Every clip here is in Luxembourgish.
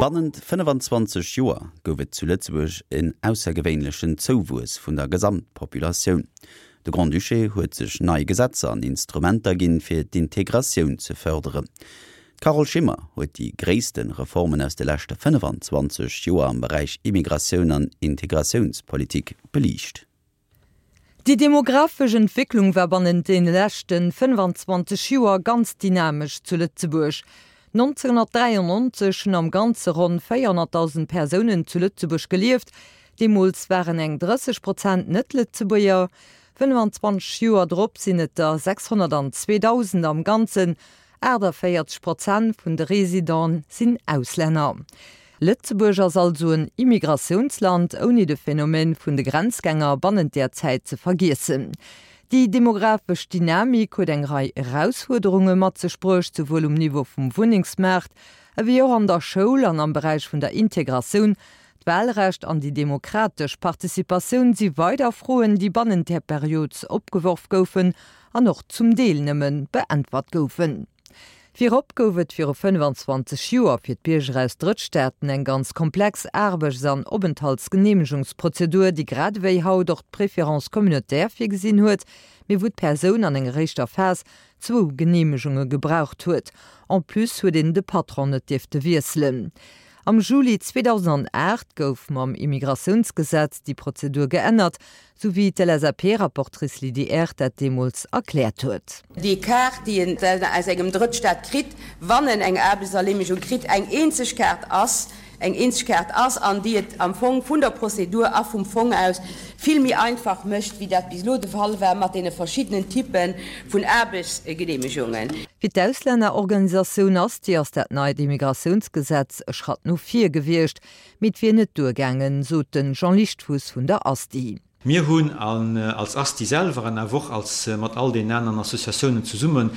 Bannent 25 Joer gouf et zu Lëtzebuerg en aussergewéinlechen Zouwuess vun der Gesamtpopulatioun. De Grand-Duché huet sech nei Gesetzer an Instrumenter ginn, fir d'Integratioun ze fërderen. D'Carole Schimmer huet déi gréisste Reformen aus de leschte 25 Joer am Beräich Immigratioun an Integratiounspolitik beliicht. Déi demografesch Entwécklung war bannent deene leschte 25 Joer ganz dynamesch zu Lëtzebuerg. 1993 hunn am Ganze ronn 400.000 Persounen zu Lëtzebuerg gelieft, deemools waren eng 30 Prozent Net-Lëtzebuerger. 25 Joer drop sinn et der 602.000 am Ganzen, 48 Prozent vun de Residenten sinn Auslänner. Lëtzebuerg ass also en Immigratiounsland, ouni de Phänomen vun de Grenzgänger bannent där Zäit ze vergiessen. Déi demografesch Dynamik huet eng Rei Erausfuerderunge mat sech bruecht, souwuel um Niveau vum Wunnengsmaart, ewéi och an der Schoul an am Beräich vun der Integratioun. D'Wahlrecht an déi demokratesch Participatioun si weider Froen, déi bannent där Period opgeworf goufen an och zum Deel nëmme beäntwert goufen. Virop gouf et viru 25 Joer fir d'Bierger aus Drëttstaaten eng ganz komplex Aarbechts an Openthaltsgeneemegungsprozedur, déi grad ewéi haut och d'Préférence communautaire virgesinn huet, mee wou d'Persoun an enger éischter Phas zwou Geneemegunge gebraucht huet. En plus huet een de Patron net dierfte wiesselen. Am Juli 2008 gouf mam Immigratiounsgesetz déi Prozedur geännert, Sou wéi d'LSAP-Rapportrice Lydie Err dat deemools erkläert huet. Déi Kaart, déi en aus engem Drëttstaat kritt, wann en eng Aarbechtserleemegung kritt, eng eenzeg Kaart ass, eng eenzeg Kaart ass an déi et am Fong vun der Prozedur a vum Fong aus vill méi einfach mécht, wéi dat bis elo de Fall war mat deene verschiddenen Typpe vun Aarbechtsgeneemegungen. Fir d'Auslännerorganisatioun Asti ass dat neit Immigratiounsgesetz e Schratt no vir gewiescht. Mee et wier net duergaangen, sot de Jean Lichtfuss vun der Asti. Mir hunn als Asti selwer an awer och als mat all deenen aneren Associatiounen zesummen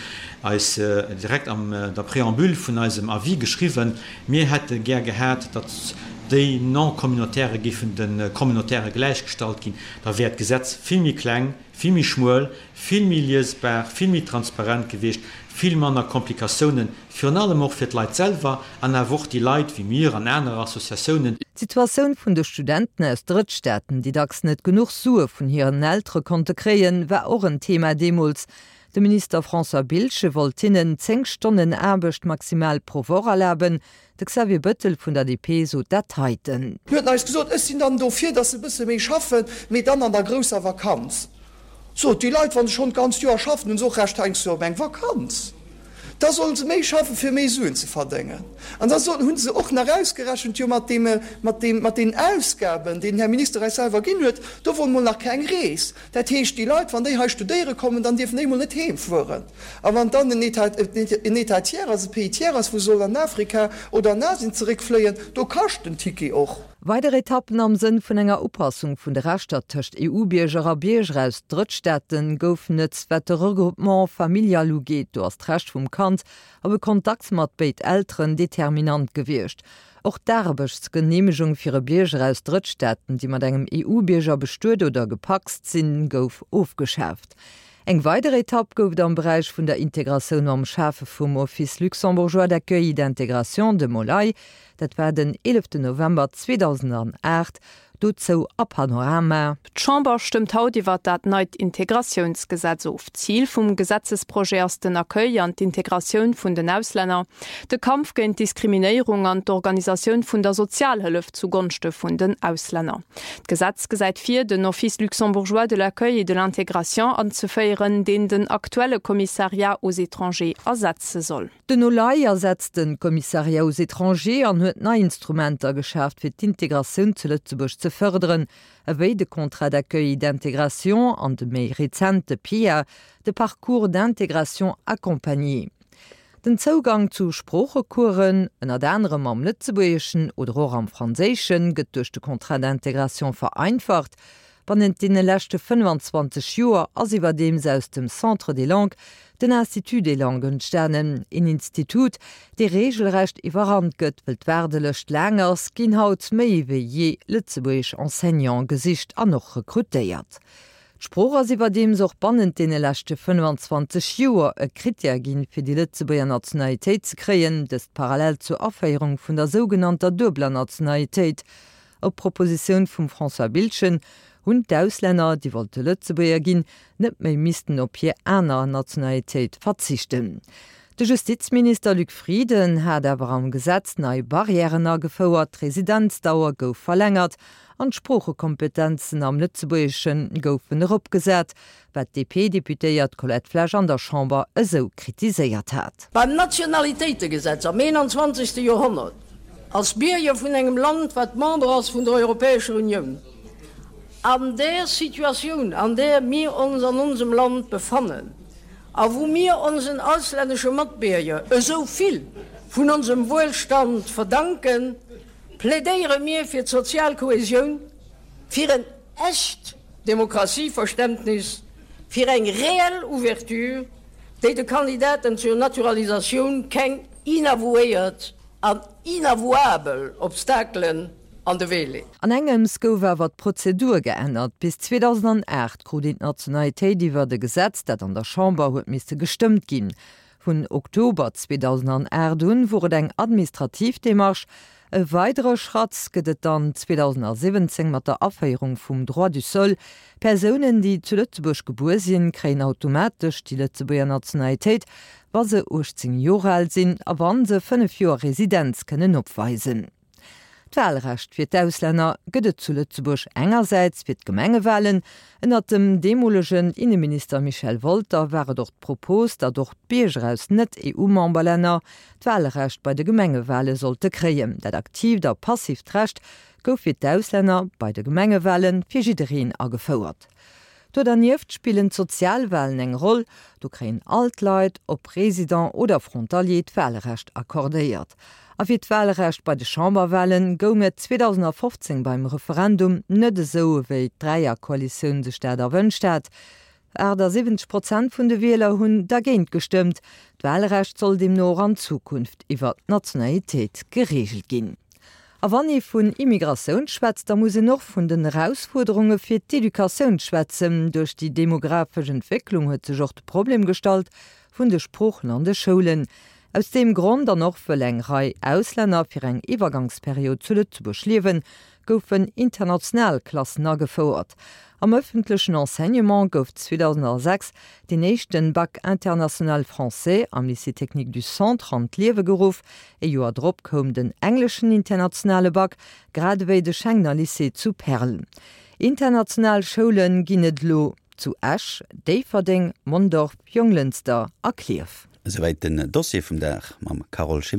eis direkt an der Préambule vun eisem Avis geschriwwen, mir hätte gär gehat, datt déi Non-Communautaire géifen de Communautaire gläichgestallt ginn. Da wär d'Gesetz vill méi kleng, vill méi schmuel, vill méi liesbar, vill méi transparent gewiescht, vill manner Komplikatiounen, virun allem och fir d'Leit selwer an awer och déi Leit wéi mir an aner Associatiounen. D'Situatioun vun de Studenten aus Drëttstaaten, déi dacks net genuch Sue vun hiren Eltere konnte kréien, war och en Thema deemools. De Minister François Biltgen wollt hinnen 10 Stonnen Aarbecht maximal pro Woch erlaben. De Xavier Bëttel vun der DP sot dat heiten. Hien huet eis gesot, Ech sinn dann dofir, datt se e bësse méi schaffen, mee dann an der grousser Vakanz. Sot, déi Leit, wa se schonn d'ganzt Joer schaffen, hunn se och Recht heiansdo op eng Vakanz. Da sollen se méi schaffen, fir méi Suen ze verdéngen. An da soll, hu se och nach ausgerechent, jo mat deem, mat deem, mat deenen Ausgaben, déi den Här Minister eis selwer ginn huet, do wor mol nach keng Rees. Dat heescht, déi Leit, wann déi hei studéiere kommen, dann dierfen déi mol net heem fueren. A wann dann en État, en État tiers ass, e Pays tiers ass, wou se sollen an Afrika oder an Asien zeréckfléien, do kascht den Ticket och. Weider Etappen am Sënn vun enger Upassung vun de Rechter tëscht EU-Bierger a Bierger aus Drëttstaate goufen et, wat de Regroupement familial ugeet. Do ass d'Recht vum Kand op e Kontakt mat béid Elteren determinant gewiescht. Och d'Aarbechtsgeneemegung fir e Bierger aus Drëttstaaten, déi mat engem EU-Bierger bestuet oder gepacst sinn, gouf ofgeschaaft. Eng weider Etapp gouf et am Beräich vun der Integratioun mam Schafe vum Office luxembourgeois d'accueil et d'intégration, dem OLAI. Dat war den 11 November 2008. Dozou a Panorama. D'Chamber stëmmt haut iwwert dat neit Integratiounsgesetz of. Zil vum Gesetzesprojet ass den Accueil an d'Integratioun vun den Auslänner, de Kampf géint d'Diskriminéierung an d'Organisatioun vun der Sozialhëllef zu Gonschte vun den Auslänner. D'Gesetz gesäit vir, den Office luxembourgeois de l'accueil et de l'intégration anzeféieren, deen den aktuelle Commissariat aux étrangers ersetze soll. Den OLAI ersetzt de Commissariat aux étrangers an huet nei Instrumenter geschaaft fir d'Integratioun zu Lëtzebuerg ze fërderen, ewéi de Contrat d'accueil et d'intégration an de méi rezente PIA, de Parcours d'intégration accompagné. Den Zougang zu Sproochecoursen, ënnert anerem am Lëtzebuergeschen oder och am Franséischen, gëtt duerch de Contrat d'intégration vereinfacht. Bannent deene leschte 25 Joer ass iwwerdeems aus dem Centre des langues den Institut des langues entstanen, een Institut, dee reegelrecht iwwerrannt gëtt. Wëll d'Waardelëscht laang ass, ginn haut méi ewéi jee lëtzebuergesch Enseignante gesicht an och rekrutéiert. D'Sprooch ass iwwerdeems och bannent deene leschte 25 Joer e Krittär ginn, fir déi Lëtzebuerger Nationalitéit ze kréien, dëst parallel zur Aféierung vun der sougenannter duebeler Nationalitéit. Op Propositioun vum François Biltgen hunn d'Auslänner, déi wollte Lëtzebuerger ginn, net méi missten op hir aner Nationalitéit verzichten. De Justizminister Luc Frieden hat awer am Gesetz nei Barrièren agefouert, d'Residenzdauer gouf verlängert an d'Sproochekompetenzen am Lëtzebuergesche goufen eropgesat, wat d'DP-Deputéiert Colette Flesch an der Chamber esou kritiséiert hat. Beim Nationalitéitegesetz am 21. Joerhonnert, als Bierger vun engem Land, wat Member ass vun der Europäescher Unioun, an där Situatioun, an där mir ons an onsem Land befannen a wou mir onsen auslännesche Matbierger esou vill vun onsem Wuelstand verdanken, plädéiere mir fir d'sozial Kohäsioun, fir en echt Demokratieverständnis, fir eng reell Ouverture, déi de Kandidaten zur Naturalisatioun keng inavouéiert an inavouabel Obstakelen an de Wee leet. An engems gouf awer d'Prozedur geännert. Bis 2008 krut een d'Nationalitéit iwwert e Gesetz, dat an der Chamber huet misse gestëmmt ginn. Vun Oktober 2008 un wor et eng administrativ Démarche. E weidere Schratt gëtt et dann 2017 mat der Aféierung vum Droit du sol. Persounen, déi zu Lëtzebuerg gebuer sinn, kréien automatesch déi Lëtzebuerger Nationalitéit, wa se 18 Joer al sinn a wa se 5 Joer Residenz kënnen opweisen. D'Wahlrecht fir d'Auslänner gëtt et zu Lëtzebuerg engersäits fir d'Gemengewahlen. Ënnert dem deemolegen Inneminister Michel Wolter war et och d'Propos, datt och d'Bierger aus Net-EU-Memberlänner d'Wahlrecht bei de Gemengewahle sollte kréien. Dat aktiivt a passiivt Recht gouf fir d'Auslänner bei de Gemengewahle fir jiddereen agefouert. Do dernieft spillen d'Sozialwalen eng Roll, do kréien all d'Leit, ob Résident oder Frontalier, d'Walrecht accordéiert. A fir d'Walrecht bei de Chamberwalen goung et 2015 beim Referendum net esou, ewéi d'Dräierkoalitioun sech dat erwënscht hat. 78 Prozent vun de Wieler hunn dergéint gestëmmt. D'Walrecht soll deemno och an Zukunft iwwer d'Nationalitéit gereegelt ginn. A wann ee vun Immigratioun schwätzt, da muss een och vun den Erausfuerderunge fir d'Educatioun schwätzen. Duerch déi demografesch Entwécklung huet sech och de Problem gestallt vun de Sproochen an de Schoulen. Aus deem Grond, an och wëll eng Rei Auslänner fir eng Iwwergangsperiod zu Lëtzebuerg liewen, goufen international Klassen agefouert. Am ëffentlechen Enseignement gouf 2006 deen éischten Bac international français am Lycée technique du Centre an d'Liewe geruff. E Joer drop koum den engleschen internationale Bac, grad ewéi de Schengener Lycée zu Perl. International Schoule ginn et elo zu Esch, Déifferdeng, Mondorf, Jonglënster a Klierf. Esouwäit den Dossier vum Dag mam Carole Schimmer.